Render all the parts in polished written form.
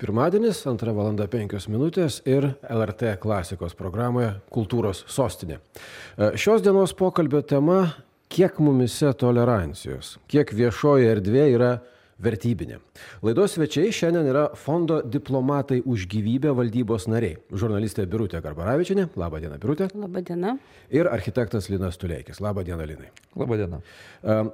Pirmadienis, 2:05 ir LRT klasikos programoje Kultūros sostinė. Šios dienos pokalbio tema – kiek mumise tolerancijos, kiek viešoji erdvė yra vertybinė. Laidos svečiai šiandien yra Fondo Diplomatai už gyvybę valdybos nariai. Žurnalistė Birutė Garbaravičienė. Labą dieną, Birutė. Labą dieną. Ir architektas Linas Tuleikis. Labą dieną, Linai. Labą dieną.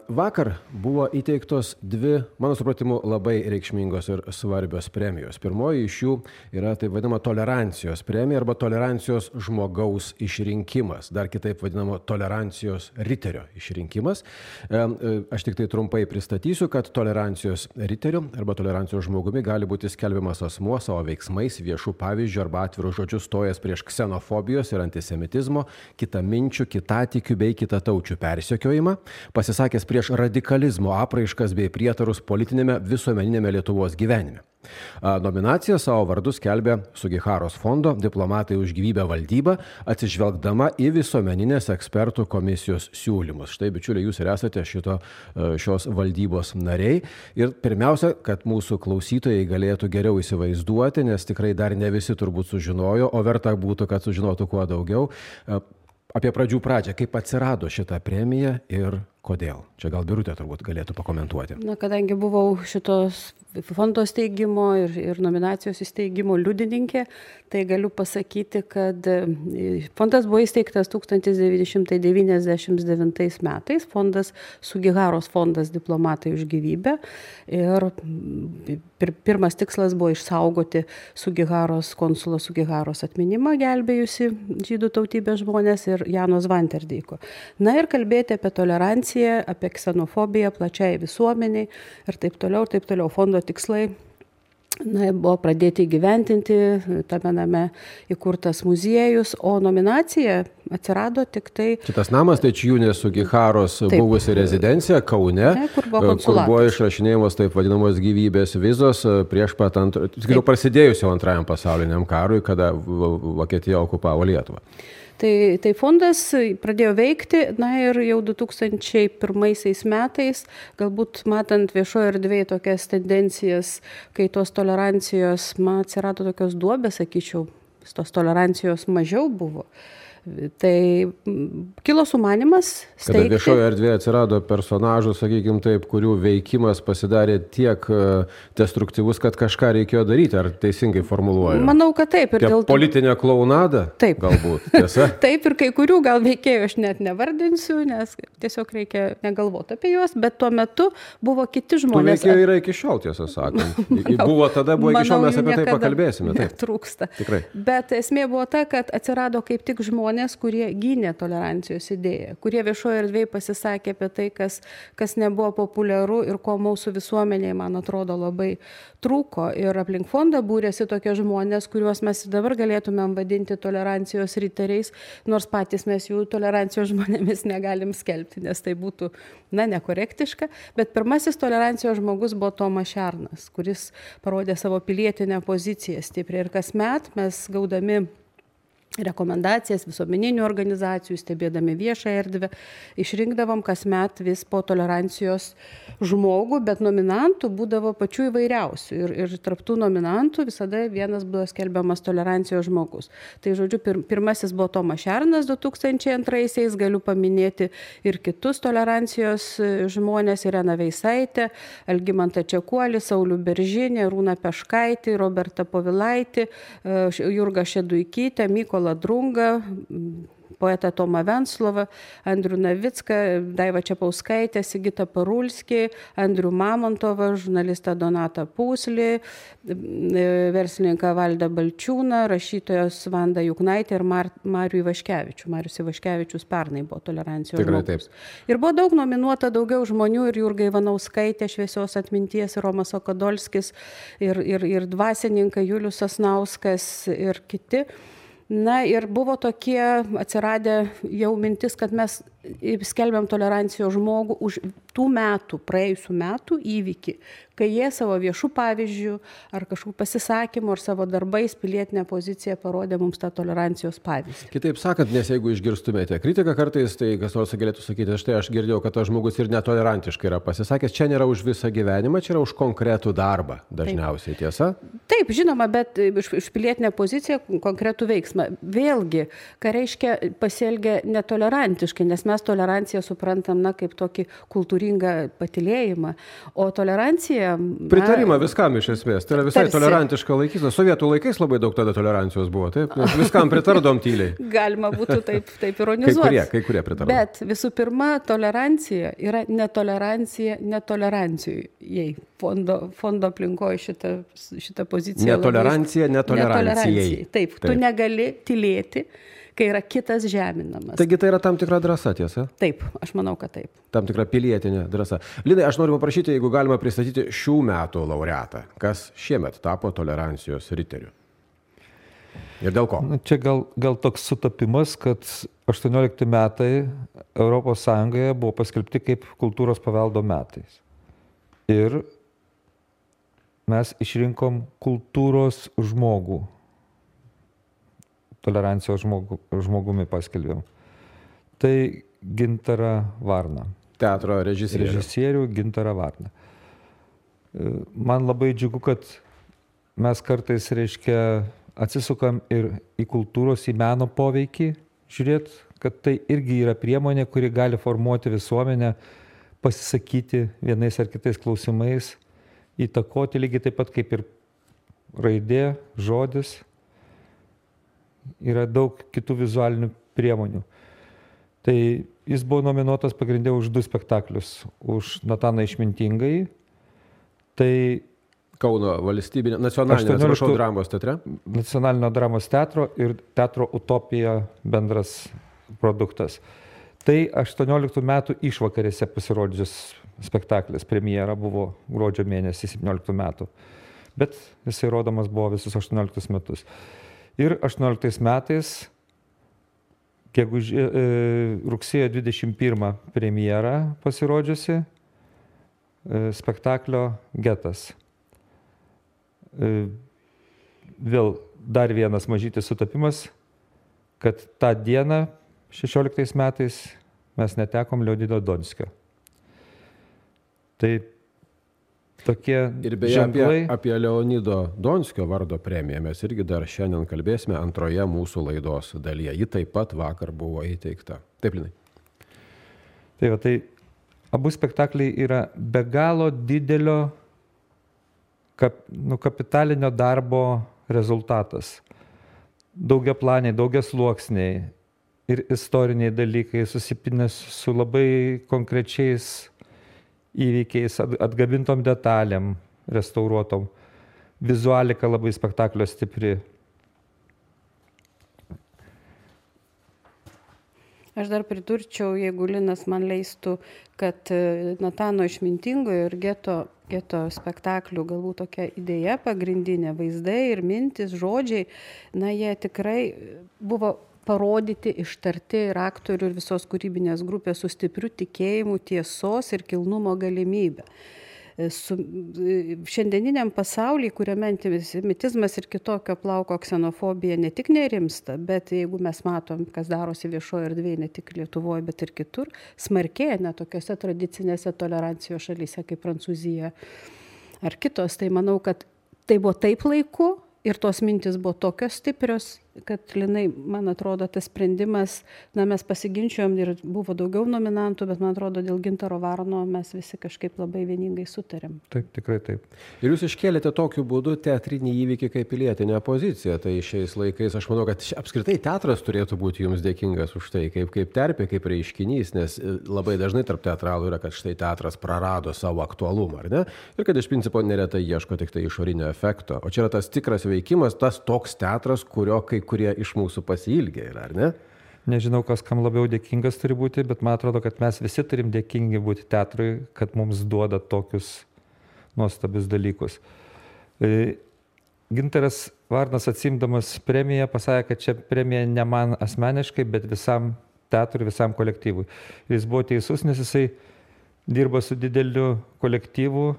Vakar buvo įteiktos dvi, mano supratimu, labai reikšmingos ir svarbios premijos. Pirmoji iš jų yra taip vadinama tolerancijos premija arba tolerancijos žmogaus išrinkimas. Dar kitaip vadinama tolerancijos riterio išrinkimas. Aš tik tai trumpai pristatysiu, kad tolerancijos riteriu arba tolerancijos žmogumi gali būti skelbiamas asmuo savo veiksmais, viešų pavyzdžių arba atvirų žodžių stojęs prieš ksenofobijos ir antisemitizmo, kitaminčių, kitatikių bei kitataučių persekiojimą, pasisakęs prieš radikalizmo apraiškas bei prietarus politinėme visuomeninėme Lietuvos gyvenime. Nominaciją savo vardu skelbia Sugiharos fondo Diplomatai už gyvybę valdyba, atsižvelgdama į visuomeninės ekspertų komisijos siūlymus. Štai, bičiuliai, jūs ir esate šios valdybos nariai. Ir pirmiausia, kad mūsų klausytojai galėtų geriau įsivaizduoti, nes tikrai dar ne visi turbūt sužinojo, o verta būtų, kad sužinotų kuo daugiau. Apie pradžią, kaip atsirado šitą premiją ir kodėl. Čia gal Birutė turbūt galėtų pakomentuoti. Kadangi buvau šitos fondo steigimo ir nominacijos įsteigimo liudininkė, tai galiu pasakyti, kad fondas buvo įsteigtas 1999 metais. Fondas Sugiharos fondas Diplomatai už gyvybę. Ir pirmas tikslas buvo išsaugoti Sugiharos, konsulo Sugiharos atminimą gelbėjusi žydų tautybės žmonės ir Jano Zvanterdeiko. Na ir kalbėti apie toleranciją, apie ksenofobiją plačiai visuomeniai ir taip toliau. Fondo tikslai buvo pradėti įgyventinti, tame name įkurtas muziejus, o nominacija atsirado tik tai... Šitas namas tai Čiūnės Sugiharos buvusi rezidencija Kaune, kur buvo išrašinėjamos taip vadinamos gyvybės vizos prieš pat prasidėjus jau antrajam pasauliniam karui, kada Vokietija okupavo Lietuvą. Tai fondas pradėjo veikti, ir jau 2001 metais, galbūt matant viešoje erdvėje tokias tendencijas, kai tos tolerancijos, atsirado tokios duobės, sakyčiau, tos tolerancijos mažiau buvo. Tai kilo sumanymas steigti. Kada viešoje erdvėje atsirado personažų, sakykime taip, kurių veikimas pasidarė tiek destruktyvus, kad kažką reikėjo daryti, ar teisingai formuluoju? Manau, kad taip. Politinė klaunadą? Taip. Galbūt, tiesa? Taip, ir kai kurių gal veikėjų aš net nevardinsiu, nes tiesiog reikia negalvoti apie juos, bet tuo metu buvo kiti žmonės. Tų veikėjų yra iki šiol, tiesą sakant. Buvo iki šiol, mes apie tai pakalbėsime. Netrūksta. Tikrai. Bet esmė buvo ta, kad atsirado kaip tik žmonės, kurie gynė tolerancijos idėją, kurie viešoje erdvėje pasisakė apie tai, kas nebuvo populiaru ir ko mūsų visuomenėje, man atrodo, labai trūko. Ir aplink fondą būrėsi tokie žmonės, kuriuos mes dabar galėtumėm vadinti tolerancijos riteriais, nors patys mes jų tolerancijos žmonėmis negalim skelbti, nes tai būtų, nekorektiška. Bet pirmasis tolerancijos žmogus buvo Tomas Šernas, kuris parodė savo pilietinę poziciją stipriai. Ir kasmet mes gaudami rekomendacijas visuomeninių organizacijų, stebėdami viešą erdvę, išrinkdavom kasmet vis po tolerancijos žmogų, bet nominantų būdavo pačių įvairiausių. Ir tarp tų nominantų visada vienas buvo skelbiamas tolerancijos žmogus. Tai žodžiu, pirmasis buvo Tomas Šernas 2002-aisiais, galiu paminėti ir kitus tolerancijos žmonės, Ireną Veisaitę, Algimantą Čekuolį, Saulių Beržinį, Rūną Peškaitį, Robertą Povilaitį, Jurgą Šeduikytę, Mykolą Drungą, poetą Tomą Venclovą, Andrių Navicką, Daivą Čepauskaitę, Sigitą Parulskį, Andrių Mamontovą, žurnalistą Donatą Pūslį, verslininką Valdą Balčiūną, rašytojos Vandą Juknaitę ir Marių Ivaškevičių. Marius Ivaškevičius pernai buvo tolerancijos žmogus. Ir buvo daug nominuota daugiau žmonių, ir Jurga Ivanauskaitė, šviesios atminties, ir Romas Okadolskis, ir dvasininkai Julius Sasnauskas ir kiti. Ir buvo tokie atsiradę jau mintis, kad mes skelbiam tolerancijos žmogų už tų metų, praėjusių metų įvykį, kai jie savo viešų pavyzdžių ar kažkokių pasisakymų ar savo darbais pilietinę poziciją parodė mums tą tolerancijos pavyzdį. Kitaip sakant, nes jeigu išgirstumėte kritiką kartais, tai kas nors galėtų sakyti, štai aš girdėjau, kad tas žmogus ir netolerantiškai yra pasisakęs, čia nėra už visą gyvenimą, čia yra už konkretų darbą dažniausiai, tiesa? Taip, žinoma, bet už pilietinę poziciją konkretų veiksmą. Vėlgi, ką reiškia pasielgia netolerantiškai, nes mes toleranciją suprantam, kaip tokį kultūringą patylėjimą, o tolerancija... Pritarimą viskam iš esmės, tai yra visai tolerantiška laikysena. Sovietų laikais labai daug tada tolerancijos buvo, taip? Nes viskam pritardom tyliai. Galima būtų taip ironizuoti. Kai kurie pritardom. Bet visų pirma, tolerancija yra netolerancija netolerancijai. Fondo aplinkoje šitą poziciją. Netolerancija netolerancijai. Taip, tu negali tylėti, kai yra kitas žeminamas. Taigi tai yra tam tikra drąsa, tiesa? Taip, aš manau, kad taip. Tam tikra pilietinė drąsa. Linai, aš noriu paprašyti, jeigu galima pristatyti šių metų laureatą, kas šiemet tapo tolerancijos riteriu. Ir dėl ko? Čia gal toks sutapimas, kad 18 metai Europos Sąjungoje buvo paskelbti kaip kultūros paveldo metais. Ir mes išrinkom kultūros žmogų. Tolerancijos žmogumi paskelbėm. Tai Gintarą Varną. Teatro režisierių. Režisierių Gintarą Varną. Man labai džiugu, kad mes kartais, atsisukam ir į kultūros, į meno poveikį, žiūrėt, kad tai irgi yra priemonė, kuri gali formuoti visuomenę, pasisakyti vienais ar kitais klausimais, įtakoti lygiai taip pat kaip ir raidė, žodis. Yra daug kitų vizualinių priemonių. Tai jis buvo nominuotas pagrindė už 2 spektaklius. Už Nataną Išmintingąjį. Tai Kauno valstybinio, nacionalinio, dramos teatre. Nacionalinio dramos teatro ir teatro Utopija bendras produktas. Tai 18 metų išvakarėse pasirodžius spektaklis. Premjera buvo gruodžio mėnesį 17 metų. Bet jisai rodomas buvo visus 18 metus. Ir 18 metais, rugsėjo 21 premjera pasirodžiusi spektaklio Getas. Vėl dar vienas mažytis sutapimas, kad tą dieną 16 metais mes netekom Leonido Donskio. Tai tokie ir beje ženklai. Apie Leonido Donskio vardo premiją mes irgi dar šiandien kalbėsime antroje mūsų laidos dalyje. Ji taip pat vakar buvo įteikta. Taip, Linai. Tai abu spektakliai yra be galo didelio kapitalinio darbo rezultatas. Daugiaplaniai, daugiasluoksniai ir istoriniai dalykai susipinę su labai konkrečiais įvykiais, atgabintom detalėm, restauruotom. Vizualika labai spektaklio stipri. Aš dar pridurčiau, jeigu Linas man leistų, kad Natano Išmintingojo ir Geto spektaklių galbūt tokia idėja pagrindinė, vaizdai ir mintis, žodžiai, jie tikrai buvo parodyti, ištarti ir aktorių ir visos kūrybinės grupės su stipriu tikėjimu, tiesos ir kilnumo galimybę. Šiandieniniam pasaulyje, kuriame antisemitizmas ir kitokio plauko ksenofobija ne tik nerimsta, bet jeigu mes matom, kas darosi viešoje erdvėje, ne tik Lietuvoje, bet ir kitur, smarkėja net tokiose tradicinėse tolerancijos šalyse kaip Prancūzija ar kitos, tai manau, kad tai buvo taip laiku ir tos mintis buvo tokios stiprios, kad, Linai, man atrodo, tas sprendimas, mes pasiginčiojom ir buvo daugiau nominantų, bet man atrodo, dėl Gintaro Varno mes visi kažkaip labai vieningai sutarėm. Taip, tikrai taip. Ir jūs iškėlėte tokiu būdu teatrinį įvykį kaip pilietinę poziciją. Tai šiais laikais aš manau, kad apskritai teatras turėtų būti jums dėkingas už tai, kaip terpė, kaip reiškinys, nes labai dažnai tarp teatralų yra, kad štai teatras prarado savo aktualumą, ar ne? Ir kad iš principo neretai ieško tik tai išorinio efekto. O čia yra tas tikras veikimas, tas toks teatras, kurio kai kurie iš mūsų pasiilgė yra, ar ne? Nežinau, kas kam labiau dėkingas turi būti, bet man atrodo, kad mes visi turim dėkingi būti teatrui, kad mums duoda tokius nuostabius dalykus. Gintaras Varnas, atsiimdamas premiją, pasakė, kad čia premija ne man asmeniškai, bet visam teatrui, visam kolektyvui. Ir jis buvo teisus, nes jisai dirba su dideliu kolektyvu.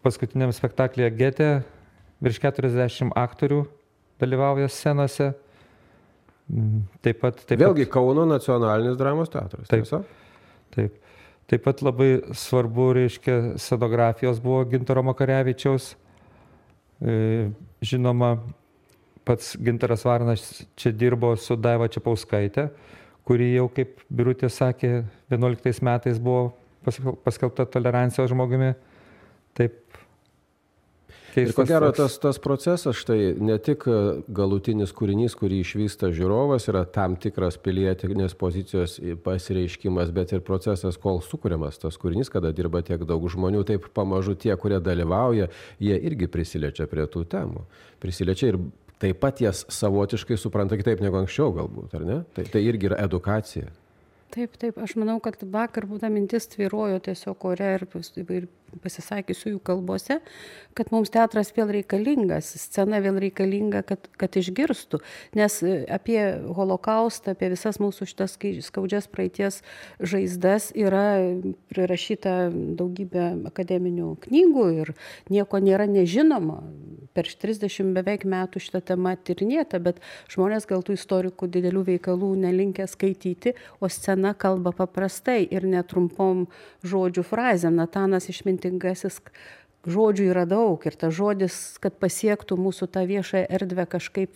Paskutiniam spektaklyje Gete virš 40 aktorių dalyvauja scenose. Taip pat Vėlgi Kauno nacionalinis dramos teatras. Taip. Taip pat labai svarbu, reiškia, scenografijos buvo Gintaro Makarevičiaus. Žinoma, pats Gintaras Varnas čia dirbo su Daiva Čepauskaitė, kuri jau, kaip Birutė sakė, 11 metais buvo paskelbta tolerancijos žmogumi. Taip. Ir ko gero tas procesas, štai ne tik galutinis kūrinys, kurį išvysta žiūrovas, yra tam tikras pilietinės pozicijos pasireiškimas, bet ir procesas, kol sukuriamas tas kūrinys, kada dirba tiek daug žmonių, taip pamažu tie, kurie dalyvauja, jie irgi prisiliečia prie tų temų. Prisiliečia ir taip pat jas savotiškai supranta kitaip negu anksčiau galbūt, ar ne? Tai irgi yra edukacija. Taip, aš manau, kad vakar būta mintis tvyrojo tiesiog ore ir pasisakysiu jų kalbose, kad mums teatras vėl reikalingas, scena vėl reikalinga, kad išgirstų. Nes apie holokaustą, apie visas mūsų šitas skaudžias praeities žaizdas yra prirašyta daugybė akademinių knygų ir nieko nėra nežinoma. Per 30 beveik metų šitą temą tyrinėta, bet žmonės gal tų istorikų didelių veikalų nelinkę skaityti, o scena kalba paprastai ir netrumpom žodžių frazėm. Natanas išmintingasis, žodžių yra daug ir tas žodis, kad pasiektų mūsų tą viešąją erdvę kažkaip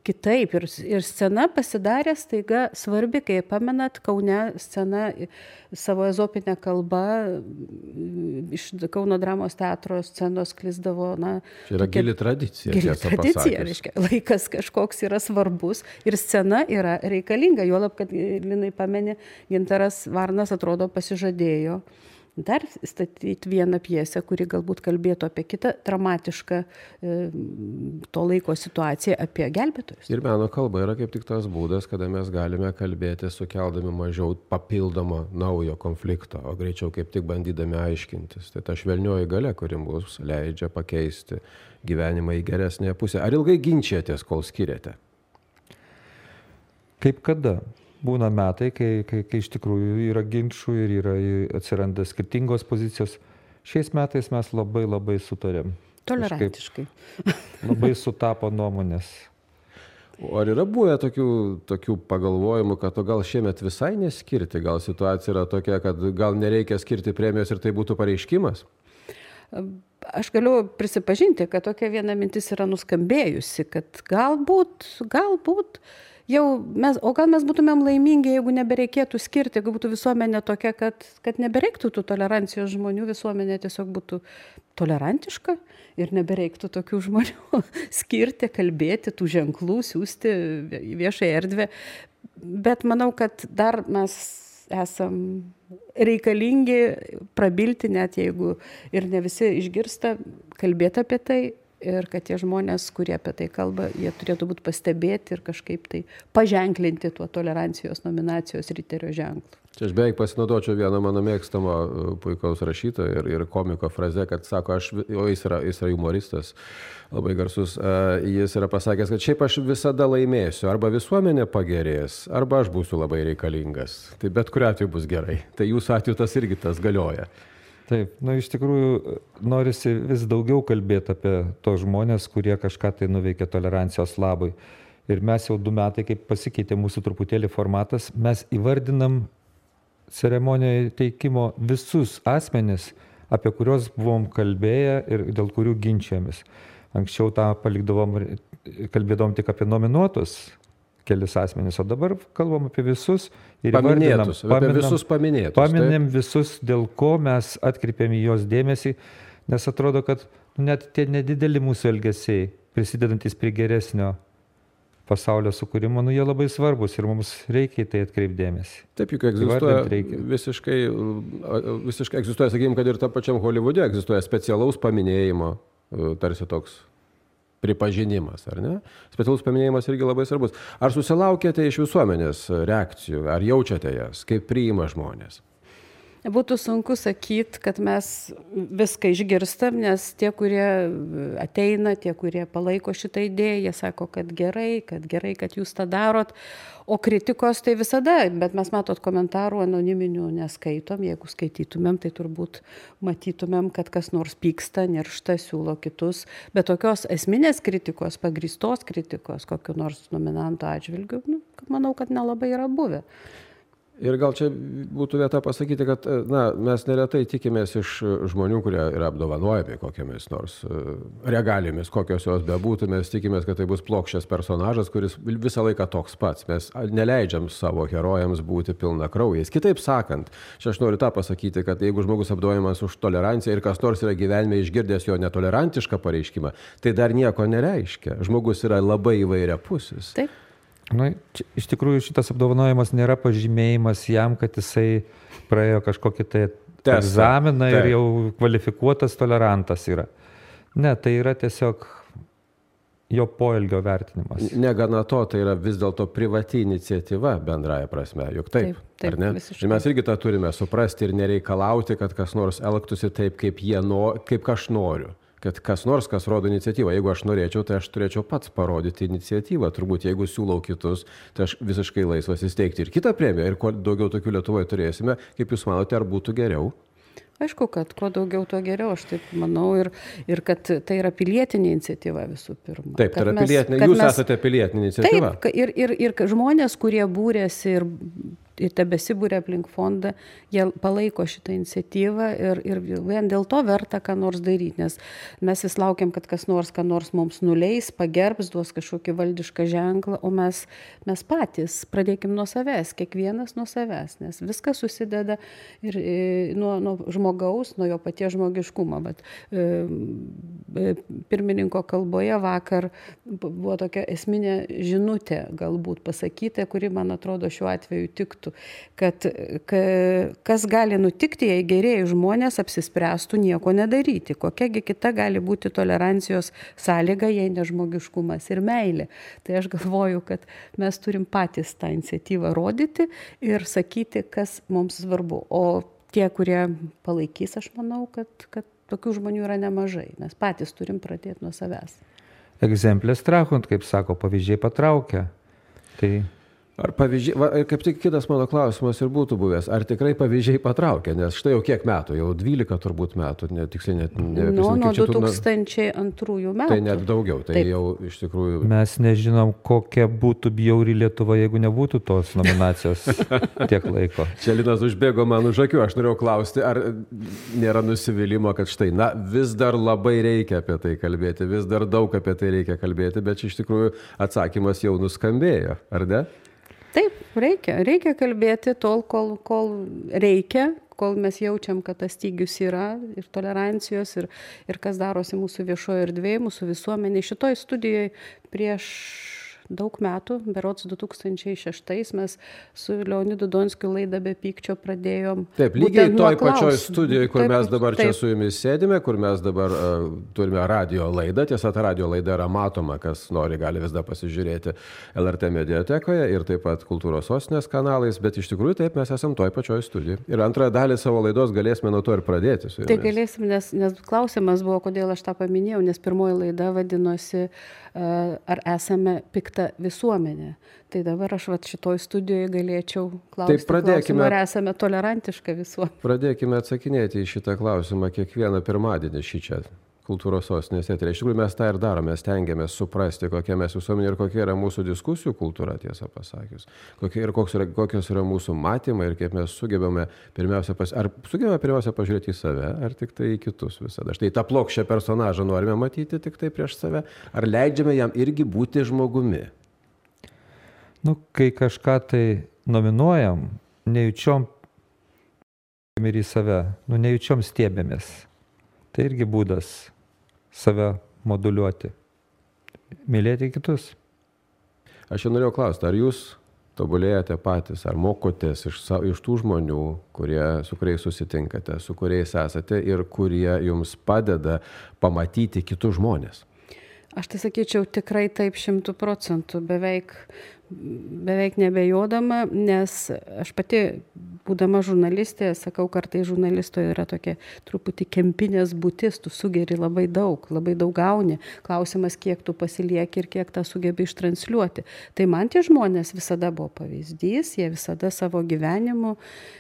kitaip. Ir scena pasidarė staiga svarbi, kai pamenat, Kaune scena savo ezopinę kalbą iš Kauno dramos teatro scenos sklisdavo. Čia yra gili tradicija. Gili tradicija, reiškia, laikas kažkoks yra svarbus ir scena yra reikalinga. Juolab, kad Linai pameni, Gintaras Varnas atrodo pasižadėjo dar statyti vieną pjesę, kuri galbūt kalbėtų apie kitą dramatišką to laiko situaciją, apie gelbėtojus. Ir meno kalba yra kaip tik tas būdas, kada mes galime kalbėti sukeldami mažiau papildomo naujo konflikto, o greičiau kaip tik bandydami aiškintis. Tai ta švelnioji galia, kuri mums leidžia pakeisti gyvenimą į geresnę pusę. Ar ilgai ginčiatės, kol skiriate? Kaip kada? Būna metai, kai iš tikrųjų yra ginčų ir atsiranda skirtingos pozicijos. Šiais metais mes labai sutarėm. Tolerantiškai. Labai sutapo nuomonės. O ar yra buvę tokių pagalvojimų, kad gal šiemet visai neskirti, gal situacija yra tokia, kad gal nereikia skirti premijos ir tai būtų pareiškimas? Aš galiu prisipažinti, kad tokia viena mintis yra nuskambėjusi, kad galbūt o gal mes būtumėm laimingi, jeigu nebereikėtų skirti, jeigu būtų visuomenė tokia, kad nebereiktų tų tolerancijos žmonių, visuomenė tiesiog būtų tolerantiška ir nebereiktų tokių žmonių skirti, kalbėti, tų ženklų, siūsti į viešąją erdvę. Bet manau, kad dar mes esam reikalingi prabilti, net jeigu ir ne visi išgirsta, kalbėti apie tai. Ir kad tie žmonės, kurie apie tai kalba, jie turėtų būti pastebėti ir kažkaip tai paženklinti tuo tolerancijos nominacijos riterio ženklu. Čia aš beveik pasinaudočiau vieną mano mėgstamo puikaus rašytojo ir komiko frazę, kad sako, jis yra humoristas, labai garsus, jis yra pasakęs, kad šiaip aš visada laimėsiu, arba visuomenė pagerės, arba aš būsiu labai reikalingas. Tai bet kuriuo atveju bus gerai. Tai jūsų atveju tas irgi tas galioja. Taip, iš tikrųjų norisi vis daugiau kalbėti apie tos žmonės, kurie kažką tai nuveikė tolerancijos labui. Ir mes jau 2 metai, kaip pasikeitė mūsų truputėlį formatas, mes įvardinam ceremonijoje teikimo visus asmenis, apie kuriuos buvom kalbėję ir dėl kurių ginčiamės. Anksčiau tą kalbėdavom tik apie nominuotus kelis asmenys, o dabar kalbam apie visus ir paminėm visus, dėl ko mes atkreipėm į jos dėmesį, nes atrodo, kad net tie nedideli mūsų elgesiai, prisidedantis prie geresnio pasaulio sukūrimo, jie labai svarbus ir mums reikia į tai atkreipdėmėsi. Taip, juk egzistuoja visiškai egzistuoja, sakykime, kad ir tam pačiam Holivude egzistuoja specialaus paminėjimo, tarsi toks pripažinimas, ar ne? Specialus paminėjimas irgi labai svarbus. Ar susilaukėte iš visuomenės reakcijų, ar jaučiate jas, kaip priima žmonės? Būtų sunku sakyti, kad mes viską išgirstam, nes tie, kurie ateina, tie, kurie palaiko šitą idėją, jie sako, kad gerai, kad jūs tą darot. O kritikos tai visada, bet mes matot komentarų anoniminių neskaitom. Jeigu skaitytumėm, tai turbūt matytumėm, kad kas nors pyksta, niršta, siūlo kitus. Bet tokios esminės kritikos, pagrįstos kritikos, kokiu nors nominanto atžvilgiu, manau, kad nelabai yra buvę. Ir gal čia būtų vieta pasakyti, kad mes neretai tikimės iš žmonių, kurie yra apdovanojami kokiamis nors regalijomis, kokios jos bebūtų, mes tikimės, kad tai bus plokščias personažas, kuris visą laiką toks pats. Mes neleidžiam savo herojams būti pilnakraujais. Kitaip sakant, čia aš noriu tą pasakyti, kad jeigu žmogus apdovanojamas už toleranciją ir kas nors yra gyvenime išgirdęs jo netolerantišką pareiškimą, tai dar nieko nereiškia. Žmogus yra labai įvairiapusis. Taip. Iš tikrųjų šitas apdovanojimas nėra pažymėjimas jam, kad jisai praėjo kažkokį tai egzaminą ir jau kvalifikuotas tolerantas yra. Ne, tai yra tiesiog jo poelgio vertinimas. Negana to, tai yra vis dėlto privati iniciatyva bendraja prasme, juk taip, ar ne? Ir mes irgi tą turime suprasti ir nereikalauti, kad kas nors elgtųsi taip, kaip aš noriu. Kad kas nors, kas rodo iniciatyvą. Jeigu aš norėčiau, tai aš turėčiau pats parodyti iniciatyvą. Turbūt, jeigu siūlau kitus, tai aš visiškai laisvas įsteigti ir kitą premiją. Ir kuo daugiau tokių Lietuvoje turėsime, kaip jūs manote, ar būtų geriau? Aišku, kad kuo daugiau, tuo geriau, aš taip manau, ir kad tai yra pilietinė iniciatyva visų pirma. Taip, tai yra pilietinė, jūs esate pilietinė iniciatyva. Taip, ir žmonės, kurie būrėsi ir tebesibūrė aplink fondą, jie palaiko šitą iniciatyvą ir vien dėl to verta ką nors daryti, nes mes vis laukiam, kad kas nors mums nuleis, pagerbs, duos kažkokį valdišką ženklą, o mes patys pradėkim nuo savęs, kiekvienas nuo savęs, nes viskas susideda ir nuo žmogaus, nuo jo paties žmogiškumo. Bet pirmininko kalboje vakar buvo tokia esminė žinutė galbūt pasakyta, kuri, man atrodo, šiuo atveju tiktų. Kad kas gali nutikti, jei gerieji žmonės apsispręstų nieko nedaryti. Kokiagi kita gali būti tolerancijos sąlyga, jei nežmogiškumas ir meilė. Tai aš galvoju, kad mes turim patys tą iniciatyvą rodyti ir sakyti, kas mums svarbu. O tie, kurie palaikys, aš manau, kad tokių žmonių yra nemažai. Mes patys turim pradėti nuo savęs. Egzemplės trahunt, kaip sako, pavyzdžiai patraukia. Tai... Ar pavyzdžiai, kaip tik kitas mano klausimas ir būtų buvęs, ar tikrai pavyzdžiai patraukia, nes štai jau kiek metų, jau 12 turbūt metų, tiksliai net nuo 2002 metų. Tai net daugiau, tai taip. Jau iš tikrųjų... Mes nežinom, kokia būtų bjauri Lietuva, jeigu nebūtų tos nominacijos tiek laiko. Čia Linas užbėgo man už akių, aš norėjau klausti, ar nėra nusivylimo, kad štai, vis dar labai reikia apie tai kalbėti, vis dar daug apie tai reikia kalbėti, bet iš tikrųjų atsakymas jau nuskambėjo, ar ne? Taip, reikia kalbėti tol, kol reikia, kol mes jaučiam, kad tas stygius yra ir tolerancijos ir kas darosi mūsų viešoje erdvėje, mūsų visuomenė. Šitoj studijoje prieš daug metų, berods 2006 mes su Leonidu Donskiu laidą Be pykčio pradėjom. Taip, lygiai toj pačioj studijoje, kur mes dabar čia su jumis sėdime, kur mes dabar turime radio laidą. Tiesa, ta radio laida yra matoma, kas nori, gali vis dar pasižiūrėti LRT mediatekoje ir taip pat Kultūros sostinės kanalais, bet iš tikrųjų taip mes esam toj pačioj studijoje. Ir antrąją dalį savo laidos galėsime nuo to ir pradėti su jumis. Tai galėsim, nes klausimas buvo, kodėl aš tą paminėjau, nes pirmoji laida vadinosi ar esame pikta visuomenė. Tai dabar aš šitoj studijoje galėčiau klausti, ar esame tolerantiška visuomenė. Pradėkime atsakinėti į šitą klausimą kiekvieną pirmadienį šį čia Kultūros sostinės eteryje. Iš tikrųjų mes tą ir darome, stengiamės suprasti, kokia mes visuomenė ir kokia yra mūsų diskusijų kultūra, tiesą pasakius. Kokios yra mūsų matymai ir kaip mes sugebame pirmiausia pažiūrėti į save, ar tik tai į kitus visada. Štai tą plokščią personažą norime matyti tik tai prieš save, ar leidžiame jam irgi būti žmogumi? Kai kažką tai nominuojam, nejučiom ir į save, nejučiom stiebėmės. Tai irgi būdas save moduliuoti, mylėti kitus. Aš jau norėjau klausti, ar jūs tobulėjate patys, ar mokotės iš tų žmonių, su kuriais susitinkate, su kuriais esate ir kurie jums padeda pamatyti kitus žmonės? Aš tai sakyčiau tikrai taip 100%. beveik nebejodama, nes aš pati, būdama žurnalistė, sakau, kartai žurnalistoje yra tokia truputį kempinės būtis, tu sugeri labai daug gauni. Klausimas, kiek tu pasilieki ir kiek tą sugebi ištransliuoti. Tai man tie žmonės visada buvo pavyzdys, jie visada savo gyvenimu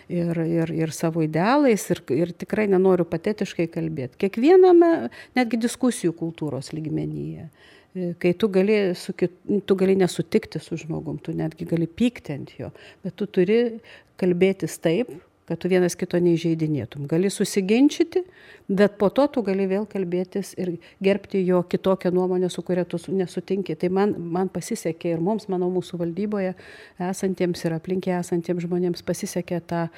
ir savo idealais ir tikrai nenoriu patetiškai kalbėti. Kiekviename, netgi diskusijų kultūros lygmenyje. Kai tu gali nesutikti su žmogum, tu netgi gali pykti ant jo, bet tu turi kalbėtis taip, kad tu vienas kito neįžeidinėtum. Gali susiginčyti, bet po to tu gali vėl kalbėtis ir gerbti jo kitokią nuomonę, su kuria tu nesutinki. Tai man pasisekė ir mums, manau, mūsų valdyboje esantiems ir aplinkė esantiems žmonėms pasisekė tą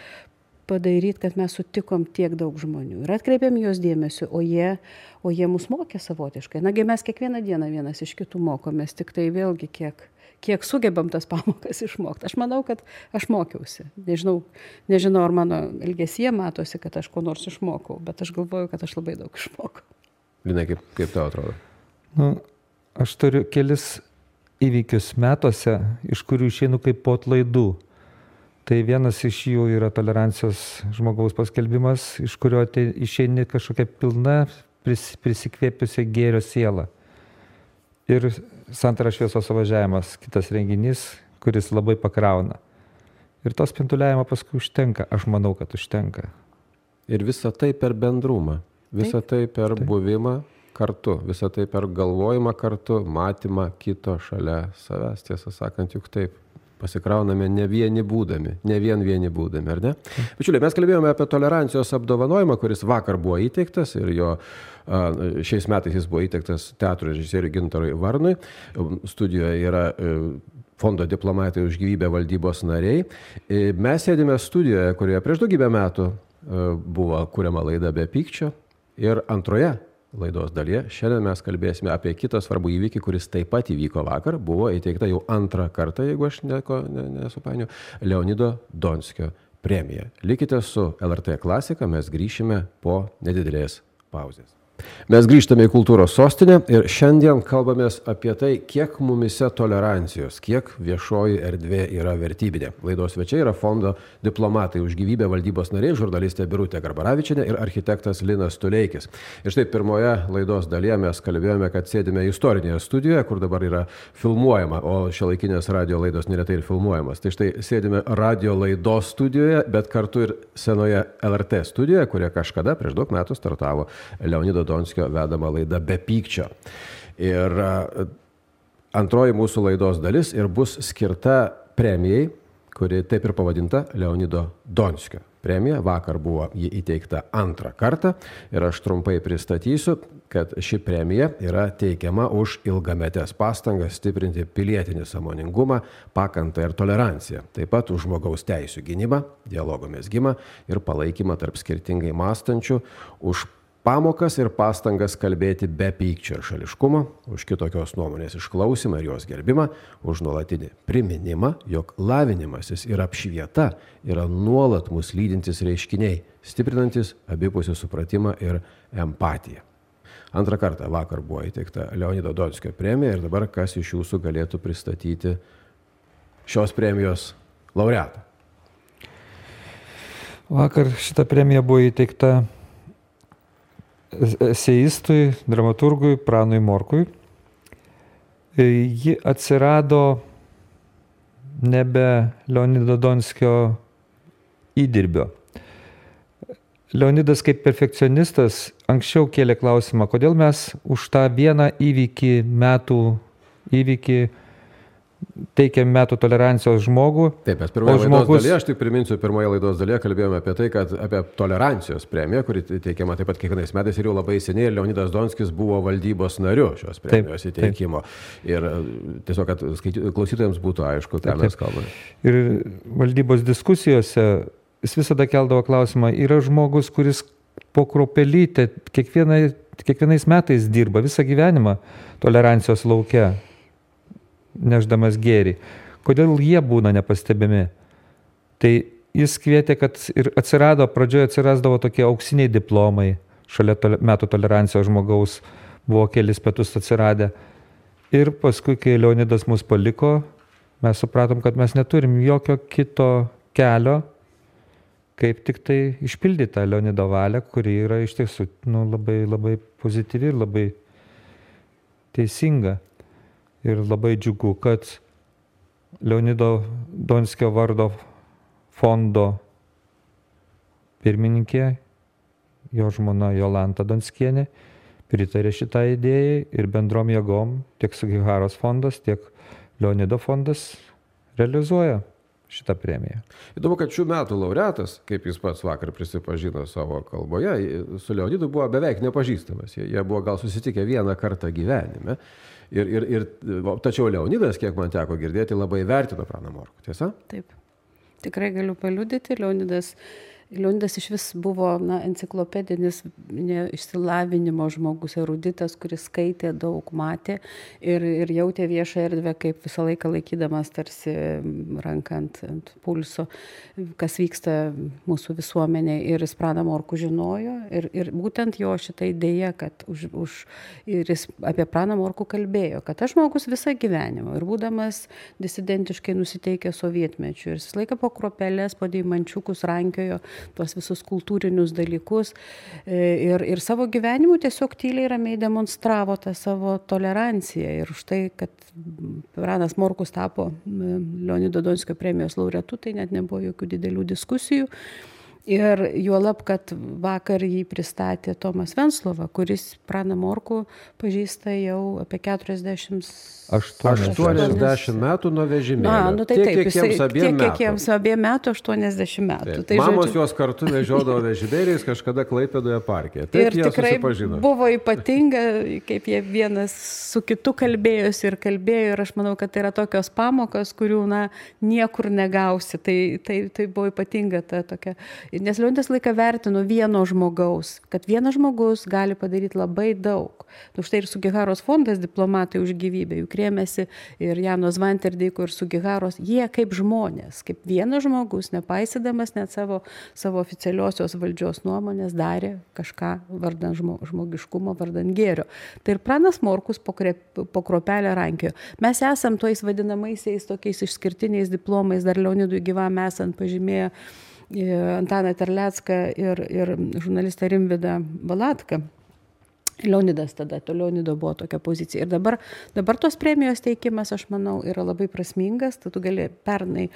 padaryti, kad mes sutikom tiek daug žmonių ir atkreipėm jos dėmesio, o jie mus mokė savotiškai. Nagi mes kiekvieną dieną vienas iš kitų mokomės, tik tai vėlgi kiek sugebam tas pamokas išmokti. Aš manau, kad aš mokiausi. Nežinau, ar mano elgesyje matosi, kad aš ko nors išmokau, bet aš galvoju, kad aš labai daug išmokau. Linai, kaip tau atrodo? Aš turiu kelis įvykius metuose, iš kurių išeinu kaip po atlaidų. Tai vienas iš jų yra tolerancijos žmogaus paskelbimas, iš kurio išeini kažkokia pilna prisikvėpiusi gėrio siela. Ir Santara šviesos suvažiavimas, kitas renginys, kuris labai pakrauna. Ir to spintuliavimo paskui užtenka, aš manau, kad užtenka. Ir visa tai per bendrumą, visa tai per buvimą kartu, visa tai per galvojimą kartu, matymą kito šalia savęs, tiesą sakant, juk taip. Pasikrauname ne vien vieni būdami, ar ne? Bičiuliai, mes kalbėjome apie tolerancijos apdovanojimą, kuris vakar buvo įteiktas ir šiais metais jis buvo įteiktas teatro režisieriui Gintarui Varnui. Studijoje yra Fondo diplomatai už gyvybę valdybos nariai. Mes sėdime studijoje, kurioje prieš daugybę metų buvo kuriama laida Be pykčio ir antroje laidos dalyje šiandien mes kalbėsime apie kitą svarbų įvykį, kuris taip pat įvyko vakar, buvo įteikta jau antrą kartą, jeigu aš nesupainiu, Leonido Donskio premija. Likite su LRT Klasika, mes grįšime po nedidelės pauzės. Mes grįžtame į kultūros sostinę ir šiandien kalbamės apie tai, kiek mumise tolerancijos, kiek viešoji erdvė yra vertybinė. Laidos svečiai yra Fondo diplomatai už gyvybę valdybos nariai, žurnalistė Birutė Garbaravičienė ir architektas Linas Tuleikis. Ir štai pirmoje laidos dalyje mes kalbėjome, kad sėdime istorinėje studijoje, kur dabar yra filmuojama, o šiuolaikinės radio laidos neretai ir filmuojamas. Tai štai sėdime radio laidos studijoje, bet kartu ir senoje LRT studijoje, kurie kažkada prieš daug metų startavo Leonido Donskio vedama laida Be pykčio. Ir antroji mūsų laidos dalis ir bus skirta premijai, kuri taip ir pavadinta Leonido Donskio premija. Vakar buvo ji įteikta antrą kartą ir aš trumpai pristatysiu, kad ši premija yra teikiama už ilgametes pastangas stiprinti pilietinį sąmoningumą, pakantą ir toleranciją. Taip pat už žmogaus teisių gynybą, dialogo mezgimą ir palaikymą tarp skirtingai mąstančių, už pamokas ir pastangas kalbėti be pykčio ir šališkumo, už kitokios nuomonės išklausimą ir jos gerbimą, už nuolatinį priminimą, jog lavinimasis ir apšvieta yra nuolat mus lydintis reiškiniai, stiprinantis abipusį supratimą ir empatiją. Antrą kartą vakar buvo įteikta Leonido Donskio premija ir dabar kas iš jūsų galėtų pristatyti šios premijos laureatą? Vakar šita premija buvo įteikta eseistui, dramaturgui Pranui Morkui. Ji atsirado nebe Leonido Donskio įdirbio. Leonidas kaip perfekcionistas anksčiau kėlė klausimą, kodėl mes už tą vieną metų įvykį teikiam metų tolerancijos žmogų. Taip, mes pirmoje laidos dalyje, aš tik priminsiu, pirmoje laidos dalyje kalbėjome apie tai, kad apie tolerancijos premiją, kuri teikiama taip pat kiekvienais metais ir jau labai seniai, Leonidas Donskis buvo valdybos nariu šios premijos įteikimo. Ir tiesiog, kad klausytojams būtų aišku, ką mes kalbame. Ir valdybos diskusijose jis visada keldavo klausimą, yra žmogus, kuris po kruopelytę kiekvienais metais dirba visą gyvenimą tolerancijos lauke, neždamas gėrį. Kodėl jie būna nepastebimi? Tai jis kvietė, kad ir pradžioje atsirasdavo tokie auksiniai diplomai, šalia metų tolerancijos žmogaus buvo kelis metus atsiradę. Ir paskui, kai Leonidas mus paliko, mes supratom, kad mes neturim jokio kito kelio, kaip tik tai išpildyti tą Leonido valią, kuri yra iš tiesų labai, labai pozityvi ir labai teisinga. Ir labai džiugu, kad Leonido Donskio vardo fondo pirmininkė, jo žmona Jolanta Donskienė, pritarė šitą idėją ir bendrom jėgom tiek Sugiharos fondas, tiek Leonido fondas realizuoja šitą premiją. Įdomu, kad šių metų laureatas, kaip jis pats vakar prisipažino savo kalboje, su Leonidu buvo beveik nepažįstamas. Jie buvo gal susitikę vieną kartą gyvenime. Tačiau Leonidas, kiek man teko girdėti, labai vertino Praną Morkų. Tiesa? Taip. Tikrai galiu paliudyti, Leonidas iš vis buvo enciklopedinis išsilavinimo žmogus, eruditas, kuris skaitė, daug matė ir jautė viešą erdvę, kaip visą laiką laikydamas tarsi ranką ant pulso, kas vyksta mūsų visuomenėje. Ir jis Praną Morkų žinojo ir būtent jo šitą idėją, kad ir jis apie Praną Morkų kalbėjo, kad aš žmogus visą gyvenimą ir būdamas disidentiškai nusiteikęs sovietmečiu ir visą laiką po kruopeles, po deimančiukus rankiojo tuos visus kultūrinius dalykus ir savo gyvenimu tiesiog tyliai ramiai demonstravo tą savo toleranciją. Ir už tai, kad Pranas Morkus tapo Leonido Donskio premijos laureatu, tai net nebuvo jokių didelių diskusijų. Ir juolab, kad vakar jį pristatė Tomas Venclova, kuris Praną Morkų pažįsta jau apie 80 metų nuo vežimėlio. Tai taip, kiek jiems abiem metų, 80 metų. Tai, mamos juos kartu vežiodavo vežimėliais kažkada Klaipėdoje parke. Taip, ir tikrai buvo ypatinga, kaip jie vienas su kitu kalbėjosi ir aš manau, kad tai yra tokios pamokos, kurių niekur negausi. Tai buvo ypatinga ta tokia. Nes Leonidas laiką vertino vieno žmogaus, kad vienas žmogus gali padaryti labai daug. Štai ir Sugiharos fondas Diplomatai už gyvybę, juk rėmėsi ir Jano Zvanterdeiko ir Sugiharos, jie kaip žmonės, kaip vienas žmogus, nepaisydamas net savo oficialiosios valdžios nuomonės, darė kažką vardan žmogiškumo, vardan gėrio. Tai ir Pranas Morkus po kruopelę rankiojo. Mes esam tojais vadinamaisiais tokiais išskirtiniais diplomais, dar Leonidui gyvam esant pažymėjo Antaną Terlecką ir žurnalistą Rimvydą Valatką. Leonidas tada, to Leonido buvo tokia pozicija. Ir dabar tos premijos teikimas, aš manau, yra labai prasmingas. Tu gali pernai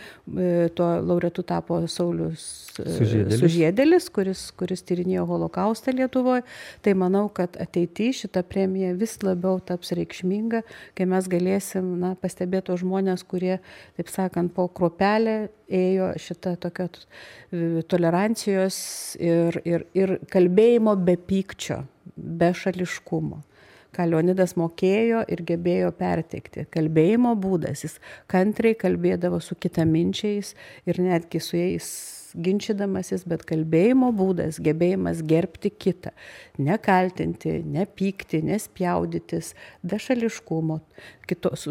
tuo laureatu tapo Saulius Sužiedėlis, kuris tyrinėjo holokaustą Lietuvoje. Tai manau, kad ateityje šita premija vis labiau taps reikšminga, kai mes galėsim pastebėti tos žmonės, kurie, taip sakant, po kruopelę ėjo šitą tokią tolerancijos ir kalbėjimo be pykčio, be šališkumo, ką Leonidas mokėjo ir gebėjo perteikti. Kalbėjimo būdas, jis kantriai kalbėdavo su kitaminčiais ir netgi su jais ginčydamasis, bet kalbėjimo būdas, gebėjimas gerbti kitą, nekaltinti, nepykti, nespjaudytis, be šališkumo,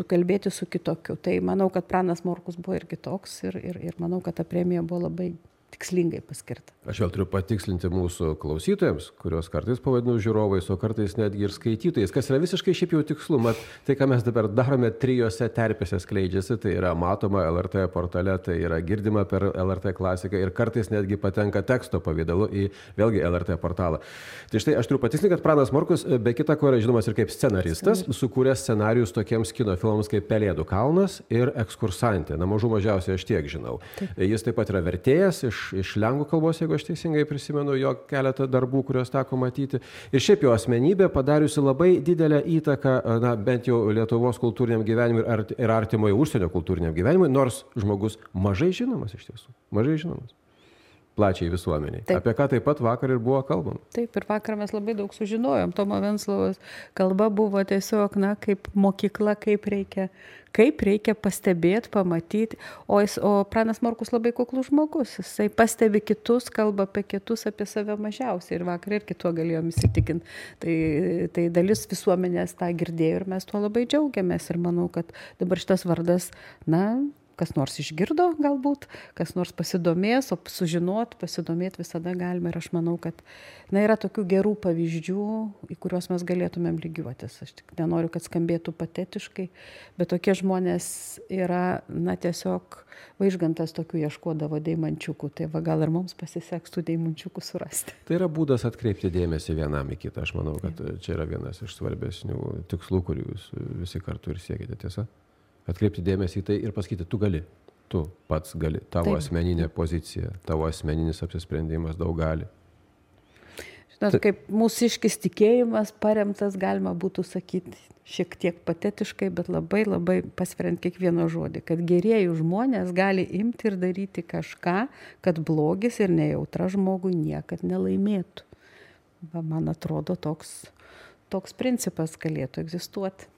kalbėti su kitokiu. Tai manau, kad Pranas Morkus buvo ir kitoks ir manau, kad ta premija buvo labai tikslingai paskirta. Aš vėl turiu patikslinti mūsų klausytojams, kurios kartais pavadinu žiūrovais, o kartais netgi ir skaitytojais, kas yra visiškai šiaip jau tikslu. Mat, tai, ką mes dabar darome, 3 terpėse skleidžiasi, tai yra matoma LRT portale, tai yra girdima per LRT klasiką ir kartais netgi patenka teksto pavidalu į vėlgi LRT portalą. Tai štai aš turiu patikslinti, kad Pranas Morkus, be kita ko, yra žinomas ir kaip scenaristas, sukūręs scenarijus tokiems kino filmams kaip Pelėdų kalnas ir Ekskursantė. Mažiausiai aš tiek žinau. Taip. Jis taip pat yra vertėjas iš lenkų kalbos, jeigu aš teisingai prisimenu jo keletą darbų, kuriuos teko matyti. Ir šiaip jo asmenybė padariusi labai didelę įtaką, bent jau Lietuvos kultūriniam gyvenimui ir artimojo užsienio kultūriniam gyvenimui, nors žmogus mažai žinomas iš tiesų. Mažai žinomas. Plačiai visuomeniai. Taip. Apie ką taip pat vakar ir buvo kalbama. Taip, ir vakar mes labai daug sužinojom. Tomo Venclovos kalba buvo tiesiog, kaip mokykla, kaip reikia pastebėti, pamatyti. O Pranas Morkus labai kuklus žmogus. Jisai pastebi kitus, kalba apie kitus, apie save mažiausiai. Ir vakar ir kituo galėjom įsitikinti. Tai dalis visuomenės tą girdėjo ir mes tuo labai džiaugiamės. Ir manau, kad dabar šitas vardas, kas nors išgirdo galbūt, kas nors pasidomės, o sužinot, pasidomėti visada galime. Ir aš manau, kad yra tokių gerų pavyzdžių, į kuriuos mes galėtumėm lygiuotis. Aš tik nenoriu, kad skambėtų patetiškai, bet tokie žmonės yra, tiesiog Vaižgantas tokių ieškodavo deimančiukų. Tai gal ir mums pasiseks tų deimančiukų surasti. Tai yra būdas atkreipti dėmesį vienam į kitą. Aš manau, kad čia yra vienas iš svarbesnių tikslų, kurių jūs visi kartu ir siekite, tiesa? Atkreipti dėmesį į tai ir pasakyti, tu pats gali, tavo asmeninė pozicija, tavo asmeninis apsisprendimas daug gali. Žinot, kaip mūsiškis tikėjimas paremtas, galima būtų sakyti šiek tiek patetiškai, bet labai labai pasveriant kiekvieną žodį, kad gerieji žmonės gali imti ir daryti kažką, kad blogis ir nejautra žmogui niekad nelaimėtų. Man atrodo, toks principas galėtų egzistuoti.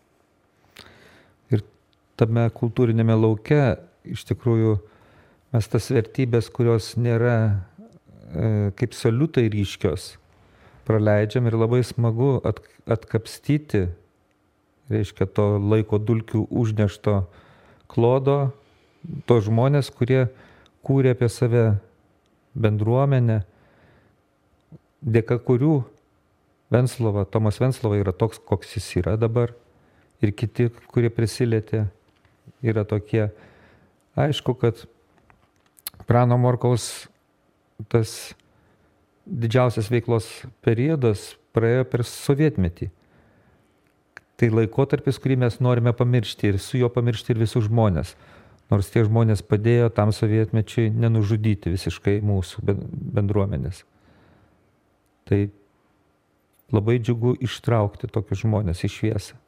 Tame kultūrinėme lauke iš tikrųjų mes tas vertybės, kurios nėra kaip saliutai ryškios, praleidžiam ir labai smagu atkapstyti, reiškia, to laiko dulkių užnešto klodo, to žmonės, kurie kūrė apie save bendruomenę, dėka kurių Tomas Venclova yra toks, koks jis yra dabar, ir kiti, kurie prisilietė, yra tokie. Aišku, kad Prano Morkaus tas didžiausias veiklos periodas praėjo per sovietmetį. Tai laikotarpis, kurį mes norime pamiršti ir su juo pamiršti ir visus žmonės. Nors tie žmonės padėjo tam sovietmečiui nenužudyti visiškai mūsų bendruomenės. Tai labai džiugu ištraukti tokius žmonės į šviesą.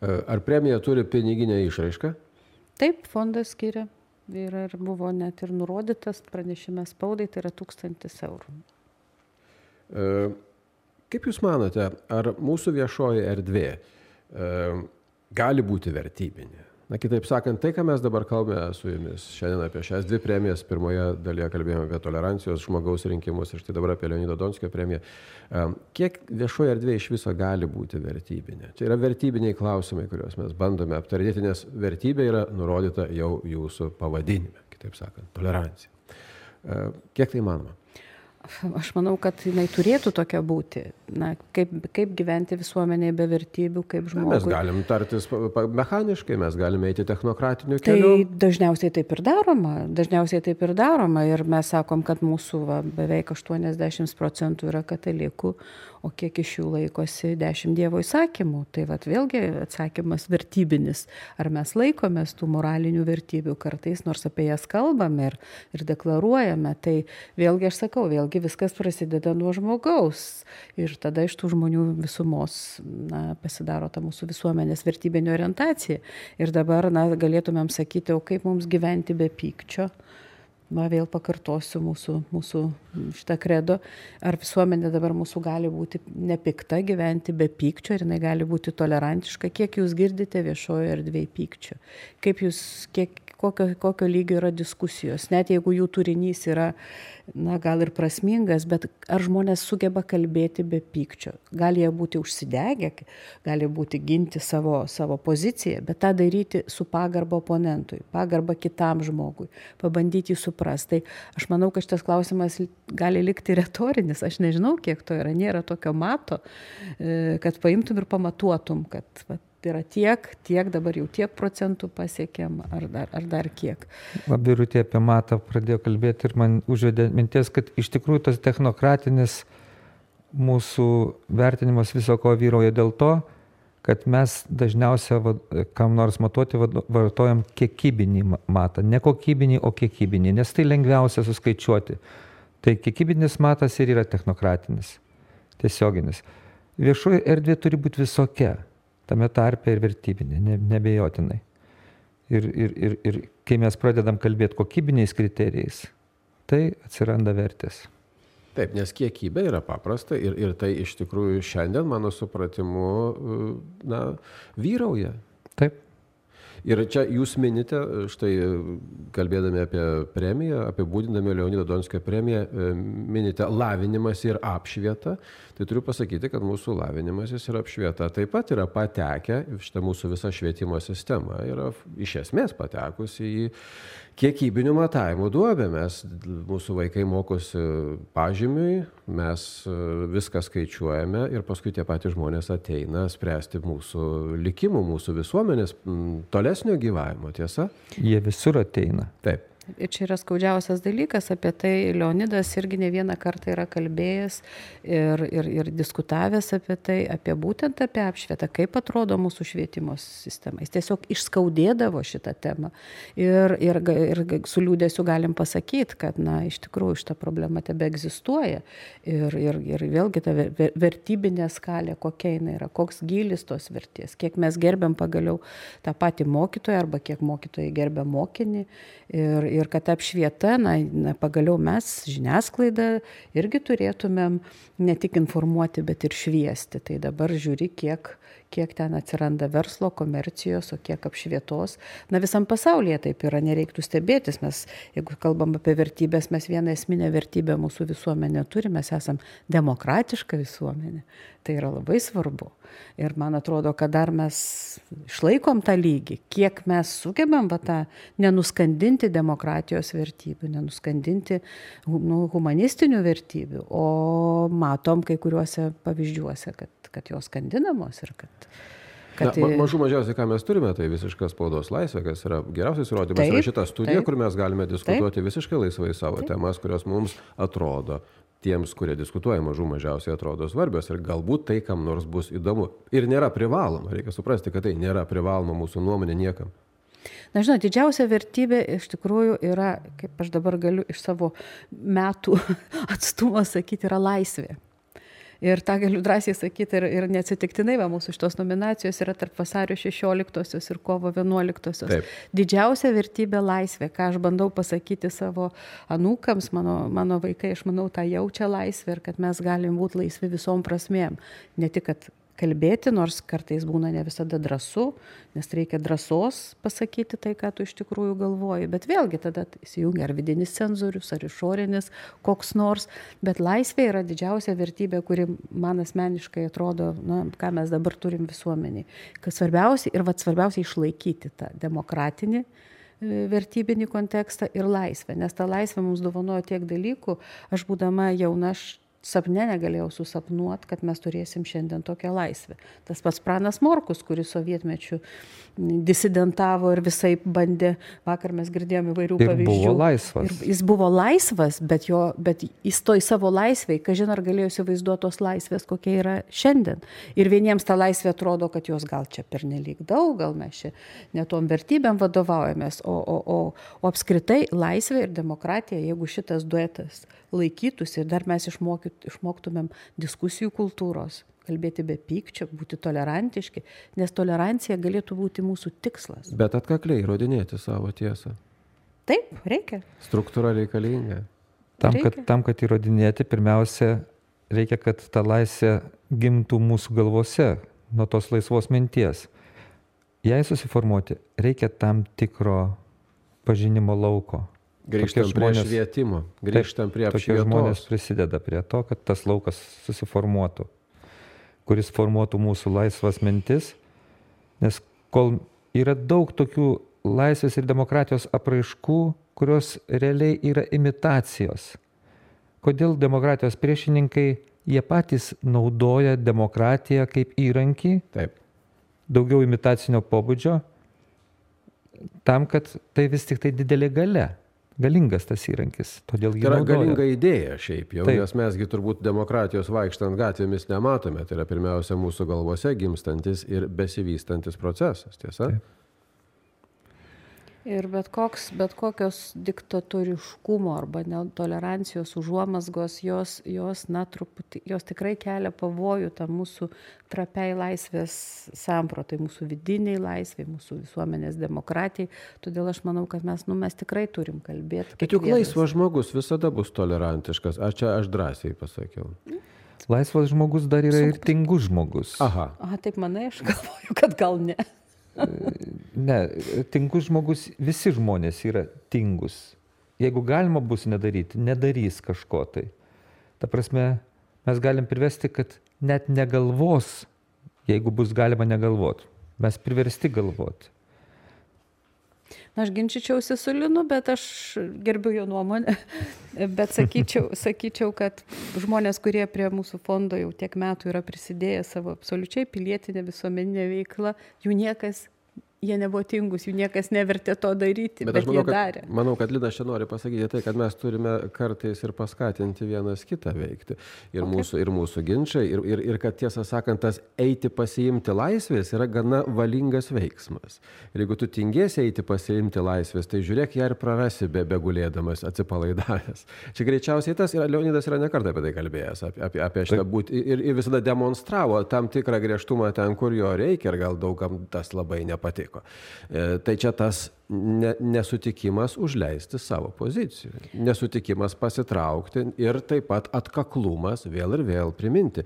Ar premija turi piniginę išraišką? Taip, fondas skiria. Ir buvo net ir nurodytas pranešime spaudai, tai yra 1000 eurų. Kaip Jūs manote, ar mūsų viešoji erdvė gali būti vertybinė? Kitaip sakant, tai, ką mes dabar kalbame su Jumis šiandien apie šias 2 premijas, pirmoje dalyje kalbėjome apie tolerancijos žmogaus rinkimus ir štai dabar apie Leonido Donskio premiją. Kiek viešoji erdvė iš viso gali būti vertybinė? Čia yra vertybiniai klausimai, kuriuos mes bandome aptarinėti, nes vertybė yra nurodyta jau Jūsų pavadinime, kitaip sakant, tolerancija. Kiek tai manoma? Aš manau, kad jinai turėtų tokia būti. Kaip gyventi visuomenėje be vertybių, kaip žmogui. Mes galim tartis mechaniškai, mes galime eiti technokratiniu keliu. Tai dažniausiai taip ir daroma. Ir mes sakom, kad mūsų beveik 80% yra katalikų, o kiek iš jų laikosi 10 Dievo įsakymų. Tai vėlgi atsakymas vertybinis. Ar mes laikomės tų moralinių vertybių kartais, nors apie jas kalbame ir deklaruojame. Tai vėlgi aš sakau, viskas prasideda nuo žmogaus. Ir tada iš tų žmonių visumos pasidaro ta mūsų visuomenės vertybinė orientacija. Ir dabar galėtumėm sakyti, o kaip mums gyventi be pykčio? Vėl pakartosiu mūsų šitą kredo. Ar visuomenė dabar mūsų gali būti nepikta, gyventi be pykčio, ir jinai gali būti tolerantiška? Kiek jūs girdite viešojo erdvėje pykčio? Kokio lygio yra diskusijos? Net jeigu jų turinys yra gal ir prasmingas, bet ar žmonės sugeba kalbėti be pykčio? Gali jie būti užsidegę, gali būti ginti savo poziciją, bet tą daryti su pagarba oponentui, pagarba kitam žmogui, pabandyti jį suprasti. Tai aš manau, kad šitas klausimas gali likti retorinis. Aš nežinau, kiek to yra. Nėra tokio mato, kad paimtum ir pamatuotum, kad yra tiek, dabar jau tiek procentų pasiekėm, ar dar kiek. Birutė apie matą pradėjo kalbėti ir man užvedė minties, kad iš tikrųjų tas technokratinis mūsų vertinimas viso ko vyrauja dėl to, kad mes dažniausiai, kam nors matuoti, vartojam kiekybinį matą. Ne kokybinį, o kiekybinį, nes tai lengviausia suskaičiuoti. Tai kiekybinis matas ir yra technokratinis, tiesioginis. Viešoji erdvė turi būti visokia. Tame tarpe ir vertybinė, nebejotinai. Ir kai mes pradedam kalbėti kokybiniais kriterijais, tai atsiranda vertės. Taip, nes kiekybė yra paprasta ir tai iš tikrųjų šiandien, mano supratimu, vyrauja. Taip. Ir čia jūs minite, štai kalbėdami apie premiją, apibūdindami Leonido Donskio premiją, minite lavinimas ir apšvieta. Tai turiu pasakyti, kad mūsų lavinimasis ir apšvieta taip pat yra patekę, šitą mūsų visą švietimo sistemą yra iš esmės patekusi į kiekybinių matavimų duobę. Mūsų vaikai mokosi pažymiui, mes viską skaičiuojame ir paskui tie patys žmonės ateina spręsti mūsų likimų, mūsų visuomenės tolesnio gyvavimo, tiesa? Jie visur ateina. Taip. Ir čia yra skaudžiausias dalykas, apie tai Leonidas irgi ne vieną kartą yra kalbėjęs ir diskutavęs apie tai, būtent apie apšvietą, kaip atrodo mūsų švietimo sistema. Jis tiesiog išskaudėdavo šitą temą ir su liūdėsiu galim pasakyti, kad iš tikrųjų šita problema tebe egzistuoja ir vėlgi ta vertybinė skalė, kokia jinai yra, koks gylis tos vertės, kiek mes gerbiam pagaliau tą patį mokytoją arba kiek mokytojai gerbia mokinį ir kad apšvieta, pagaliau mes, žiniasklaida, irgi turėtumėm ne tik informuoti, bet ir šviesti. Tai dabar žiūri, kiek ten atsiranda verslo, komercijos, o kiek apšvietos. Visam pasaulyje taip yra, nereiktų stebėtis. Mes, jeigu kalbam apie vertybės, mes vieną esminę vertybę mūsų visuomenė turime, mes esam demokratiška visuomenė. Tai yra labai svarbu. Ir man atrodo, kad dar mes išlaikom tą lygį, kiek mes sugebam tą nenuskandinti demokratijos vertybių, nenuskandinti humanistinių vertybių, o matom kai kuriuose pavyzdžiuose, kad jos skandinamos ir kad... Mažų mažiausiai, ką mes turime, tai visiška spaudos laisvė, kas yra geriausias įrodymas. Yra šita studija, kur mes galime diskutuoti visiškai laisvai savo temas, kurios mums atrodo, tiems, kurie diskutuoja, mažų mažiausiai atrodo svarbios ir galbūt tai, kam nors bus įdomu. Ir nėra privaloma, reikia suprasti, kad tai nėra privaloma mūsų nuomonė niekam. Žinot, didžiausia vertybė iš tikrųjų yra, kaip aš dabar galiu iš savo metų atstumo sakyti, yra laisvė. Ir tą galiu drąsiai sakyti ir neatsitiktinai, mūsų šitos nominacijos yra tarp vasario 16-osios ir kovo 11-osios. Taip. Didžiausia vertybė laisvė, ką aš bandau pasakyti savo anūkams, mano vaikai, aš manau, tą jaučia laisvę ir kad mes galim būti laisvi visom prasmėm. Ne tik, kad kalbėti, nors kartais būna ne visada drąsu, nes reikia drąsos pasakyti tai, ką tu iš tikrųjų galvoji. Bet vėlgi tada įsijungia ar vidinis cenzorius, ar išorinis koks nors. Bet laisvė yra didžiausia vertybė, kuri man asmeniškai atrodo, ką mes dabar turim visuomeniai. Kad svarbiausia išlaikyti tą demokratinį vertybinį kontekstą ir laisvę. Nes ta laisvė mums dovanojo tiek dalykų. Aš būdama jauna, sapne negalėjau susapnuoti, kad mes turėsim šiandien tokią laisvę. Tas pats Pranas Morkus, kuris sovietmečiu disidentavo ir visai bandė, vakar mes girdėjome įvairių pavyzdžių. Ir buvo laisvas. Ir jis buvo laisvas, bet jis toj savo laisvėj, kažin ar galėjo įsivaizduoti tos laisvės, kokia yra šiandien. Ir vieniems ta laisvė atrodo, kad jos gal čia pernelyg daug, gal mes čia netom vertybėm vadovaujamės, o apskritai laisvė ir demokratija, jeigu šitas duetas laikytųsi ir dar mes išmoktumėm diskusijų kultūros, kalbėti be pykčio, būti tolerantiški, nes tolerancija galėtų būti mūsų tikslas. Bet atkakliai įrodinėti savo tiesą. Taip, reikia. Struktūra reikalinga. Tam, kad įrodinėti, pirmiausia, reikia, kad ta laisvė gimtų mūsų galvose nuo tos laisvos minties. Jei susiformuoti, reikia tam tikro pažinimo lauko. Grįžtam prie švietimo, grįžtam prie apšvietos. Tokie žmonės prisideda prie to, kad tas laukas susiformuotų, kuris formuotų mūsų laisvas mintis, nes kol yra daug tokių laisvės ir demokratijos apraiškų, kurios realiai yra imitacijos. Kodėl demokratijos priešininkai, jie patys naudoja demokratiją kaip įrankį, taip, daugiau imitacinio pobūdžio, tam, kad tai vis tik tai didelė galia. Galingas tas įrankis, todėl jį naudoja. Tai yra galinga idėja šiaip jau, nes mesgi turbūt demokratijos vaikštant gatvėmis nematome. Tai yra pirmiausia mūsų galvose gimstantis ir besivystantis procesas, tiesa? Taip. Ir bet kokios diktatoriškumo arba netolerancijos užuomazgos, jos tikrai kelia pavojų tam mūsų trapiai laisvės sampratai, mūsų vidiniai laisvai, mūsų visuomenės demokratijai. Todėl aš manau, kad mes tikrai turim kalbėti. Bet juk laisvas žmogus visada bus tolerantiškas. Aš drąsiai pasakiau. Laisvas žmogus dar yra ir tingus žmogus. Aha, taip manai, aš galvoju, kad gal ne. Ne, tingus žmogus, visi žmonės yra tingus. Jeigu galima bus nedaryti, nedarys kažko tai. Ta prasme, mes galim privesti, kad net negalvos, jeigu bus galima negalvoti. Mes priversti galvoti. Na, aš ginčičiausi su Linu, bet aš gerbiu jo nuomonę. Bet sakyčiau, kad žmonės, kurie prie mūsų fondo jau tiek metų yra prisidėję savo absoliučiai pilietinę visuomeninę veiklą, jie nebuvo tingus, jų niekas nevertė to daryti, bet jie darė. Manau, kad Linas čia nori pasakyti tai, kad mes turime kartais ir paskatinti vienas kitą veikti. Ir mūsų ginčiai, ir kad tiesą sakant, tas eiti pasiimti laisvės yra gana valingas veiksmas. Ir jeigu tu tingėsi eiti pasiimti laisvės, tai žiūrėk, ją ir prarasi begulėdamas, atsipalaidavęs. Čia greičiausiai tas, ir Leonidas yra nekartą apie tai kalbėjęs, apie šitą būti, ir visada demonstravo tam tikrą griežtumą ten, kur jo reikia, ir gal daugam tas labai nepatiko. Tai čia tas nesutikimas užleisti savo pozicijų, nesutikimas pasitraukti ir taip pat atkaklumas vėl ir vėl priminti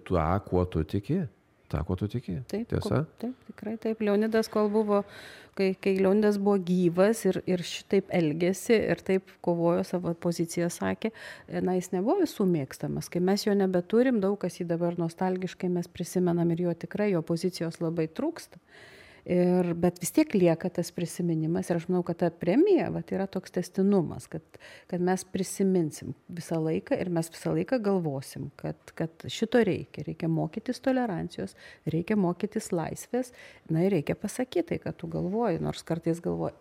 tą, kuo tu tiki. Taip, tiesa? Taip, tikrai taip. Leonidas, kol buvo, kai Leonidas buvo gyvas ir šitaip elgėsi ir taip kovojo, savo poziciją sakė, jis nebuvo visų mėgstamas. Kai mes jo nebeturim, daug kas jį dabar nostalgiškai mes prisimenam ir jo tikrai, jo pozicijos labai trūksta. Bet vis tiek lieka tas prisiminimas ir aš manau, kad ta premija yra toks tęstinumas, kad mes prisiminsim visą laiką ir mes visą laiką galvosim, kad šito reikia mokytis tolerancijos, reikia mokytis laisvės, ir reikia pasakyti tai, kad tu galvoji, nors kartais galvoji,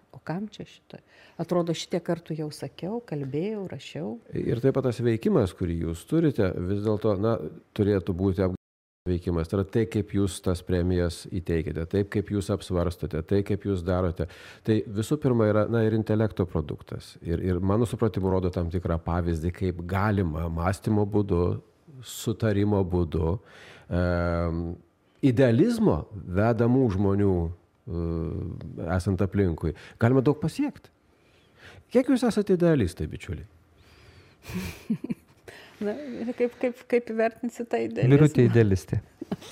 o kam čia šito? Atrodo, šitie kartų jau sakiau, kalbėjau, rašiau. Ir taip pat tas veikimas, kurį jūs turite, vis dėlto, turėtų būti veikimas. Tai yra tai, kaip jūs tas premijas įteikite, taip, kaip jūs apsvarstote, tai, kaip jūs darote. Tai visų pirma yra, ir intelekto produktas. Ir mano supratimu rodo tam tikrą pavyzdį, kaip galima mąstymo būdu, sutarimo būdu, idealizmo vedamų žmonių esant aplinkui, galima daug pasiekti. Kiek jūs esate idealistai, bičiuliai? Kaip įvertinsi tą idealizmą? Birutė idealistė.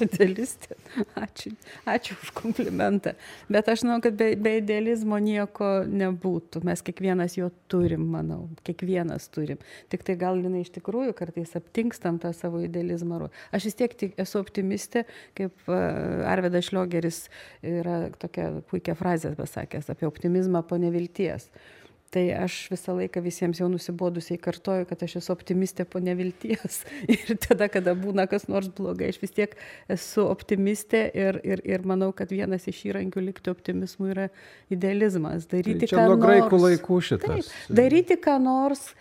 Idealistė. Ačiū už komplimentą. Bet aš žinau, kad be idealizmo nieko nebūtų. Mes kiekvienas jo turim, manau. Kiekvienas turim. Tik tai gal iš tikrųjų kartais aptinkstam tą savo idealizmą. Aš vis tiek esu optimistė, kaip Arvydas Šliogeris yra tokia puikia frazė pasakęs apie optimizmą po nevilties. Tai aš visą laiką visiems jau nusibodusiai kartoju, kad aš esu optimistė po nevilties. Ir tada, kada būna kas nors blogai, aš vis tiek esu optimistė ir manau, kad vienas iš įrankių likti optimizmui yra idealizmas. Daryti čia nuo graikų laikų šitas. Taip, daryti ką nors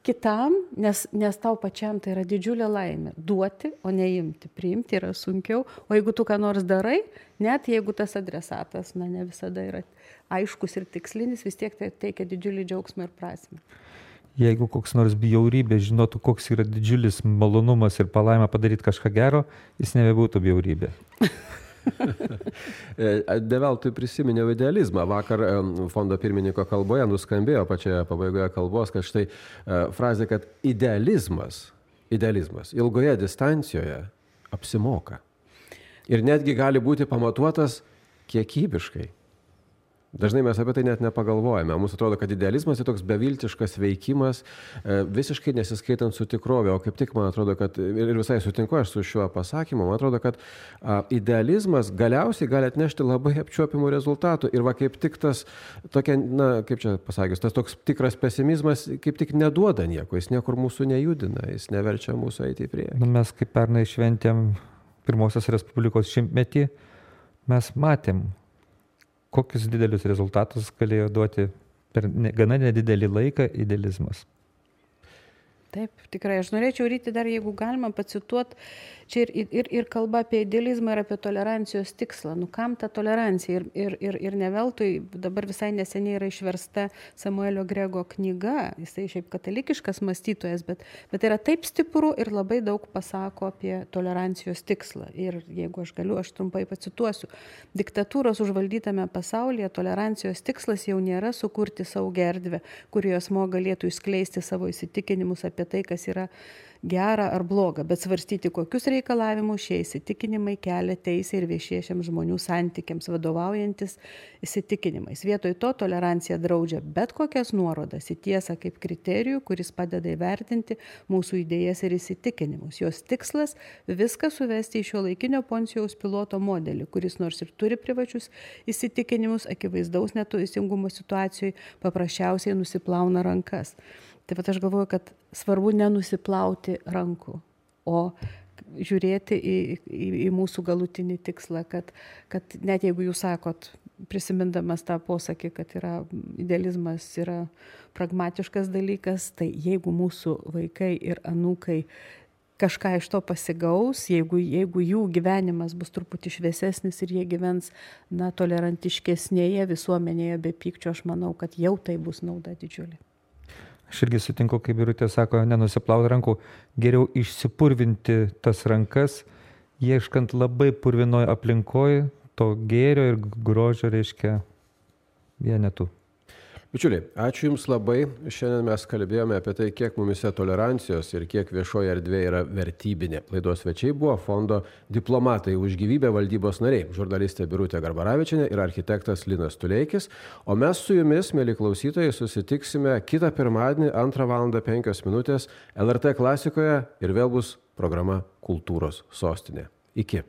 kitam, nes tau pačiam tai yra didžiulė laimė. Duoti, o neimti. Priimti yra sunkiau. O jeigu tu ką nors darai, net jeigu tas adresatas, ne visada yra aiškus ir tikslinis, vis tiek tai teikia didžiulį džiaugsmą ir prasmę. Jeigu koks nors bjaurybė žinotų, koks yra didžiulis malonumas ir palaima padaryti kažką gero, jis nebebūtų bjaurybė. Develtui prisiminiau idealizmą. Vakar fondo pirmininko kalboje nuskambėjo pačioje pabaigoje kalbos, kad štai frazė, kad idealizmas ilgoje distancijoje apsimoka. Ir netgi gali būti pamatuotas kiekybiškai. Dažnai mes apie tai net nepagalvojame. Mums atrodo, kad idealizmas yra toks beviltiškas veikimas, visiškai nesiskaitant su tikrovė. O kaip tik man atrodo, kad ir visai sutinku aš su šiuo pasakymu, man atrodo, kad idealizmas galiausiai gali atnešti labai apčiuopimų rezultatų. Ir kaip tik tas tokia, kaip čia pasakius, tas toks tikras pesimizmas kaip tik neduoda nieko. Jis niekur mūsų nejudina, jis neverčia mūsų eiti į priekį. Mes kaip pernai šventėm Pirmosios Respublikos 100-metį, mes matėm, kokius didelius rezultatus galėjo duoti per gana nedidelį laiką idealizmas. Taip, tikrai. Aš norėčiau Ryti dar, jeigu galima, pacituoti čia ir kalba apie idealizmą ir apie tolerancijos tikslą. Kam ta tolerancija? Ir ne veltui dabar visai neseniai yra išversta Samuelio Grego knyga. Jisai šiaip katalikiškas mąstytojas, bet yra taip stipru ir labai daug pasako apie tolerancijos tikslą. Ir jeigu aš galiu, aš trumpai pacituosiu. Diktatūros užvaldytame pasaulyje tolerancijos tikslas jau nėra sukurti saugią erdvę, kurioje asmuo galėtų išskleisti savo įsitikinimus apie apie tai, kas yra gera ar bloga, bet svarstyti, kokius reikalavimus šie įsitikinimai kelia teisė ir viešiesiems žmonių santykiams vadovaujantis įsitikinimais. Vietoj to tolerancija draudžia bet kokias nuorodas į tiesą kaip kriterijų, kuris padeda įvertinti mūsų idėjas ir įsitikinimus. Jos tikslas - viską suvesti į šiuolaikinio Poncijaus Piloto modelį, kuris nors ir turi privačius įsitikinimus, akivaizdaus neteisingumo situacijoje paprasčiausiai nusiplauna rankas. Taip pat aš galvoju, kad svarbu nenusiplauti rankų, o žiūrėti į mūsų galutinį tikslą, kad net jeigu jūs sakot, prisimindamas tą posakį, kad idealizmas yra pragmatiškas dalykas, tai jeigu mūsų vaikai ir anūkai kažką iš to pasigaus, jeigu jų gyvenimas bus truputį šviesesnis ir jie gyvens tolerantiškesnėje visuomenėje be pykčio, aš manau, kad jau tai bus nauda didžiulė. Aš irgi sutinku, kaip Birutė sako, nenusiplauti rankų, geriau išsipurvinti tas rankas, ieškant labai purvinoje aplinkoje, to gėrio ir grožio reiškia vienetų. Bičiuliai, ačiū Jums labai. Šiandien mes kalbėjome apie tai, kiek mumise tolerancijos ir kiek viešoje erdvėje yra vertybinė. Laidos svečiai buvo fondo Diplomatai už gyvybę valdybos nariai, žurnalistė Birutė Garbaravičienė ir architektas Linas Tuleikis. O mes su Jumis, mėly klausytojai, susitiksime kitą pirmadienį 2:05 LRT klasikoje ir vėl bus programa Kultūros sostinė. Iki.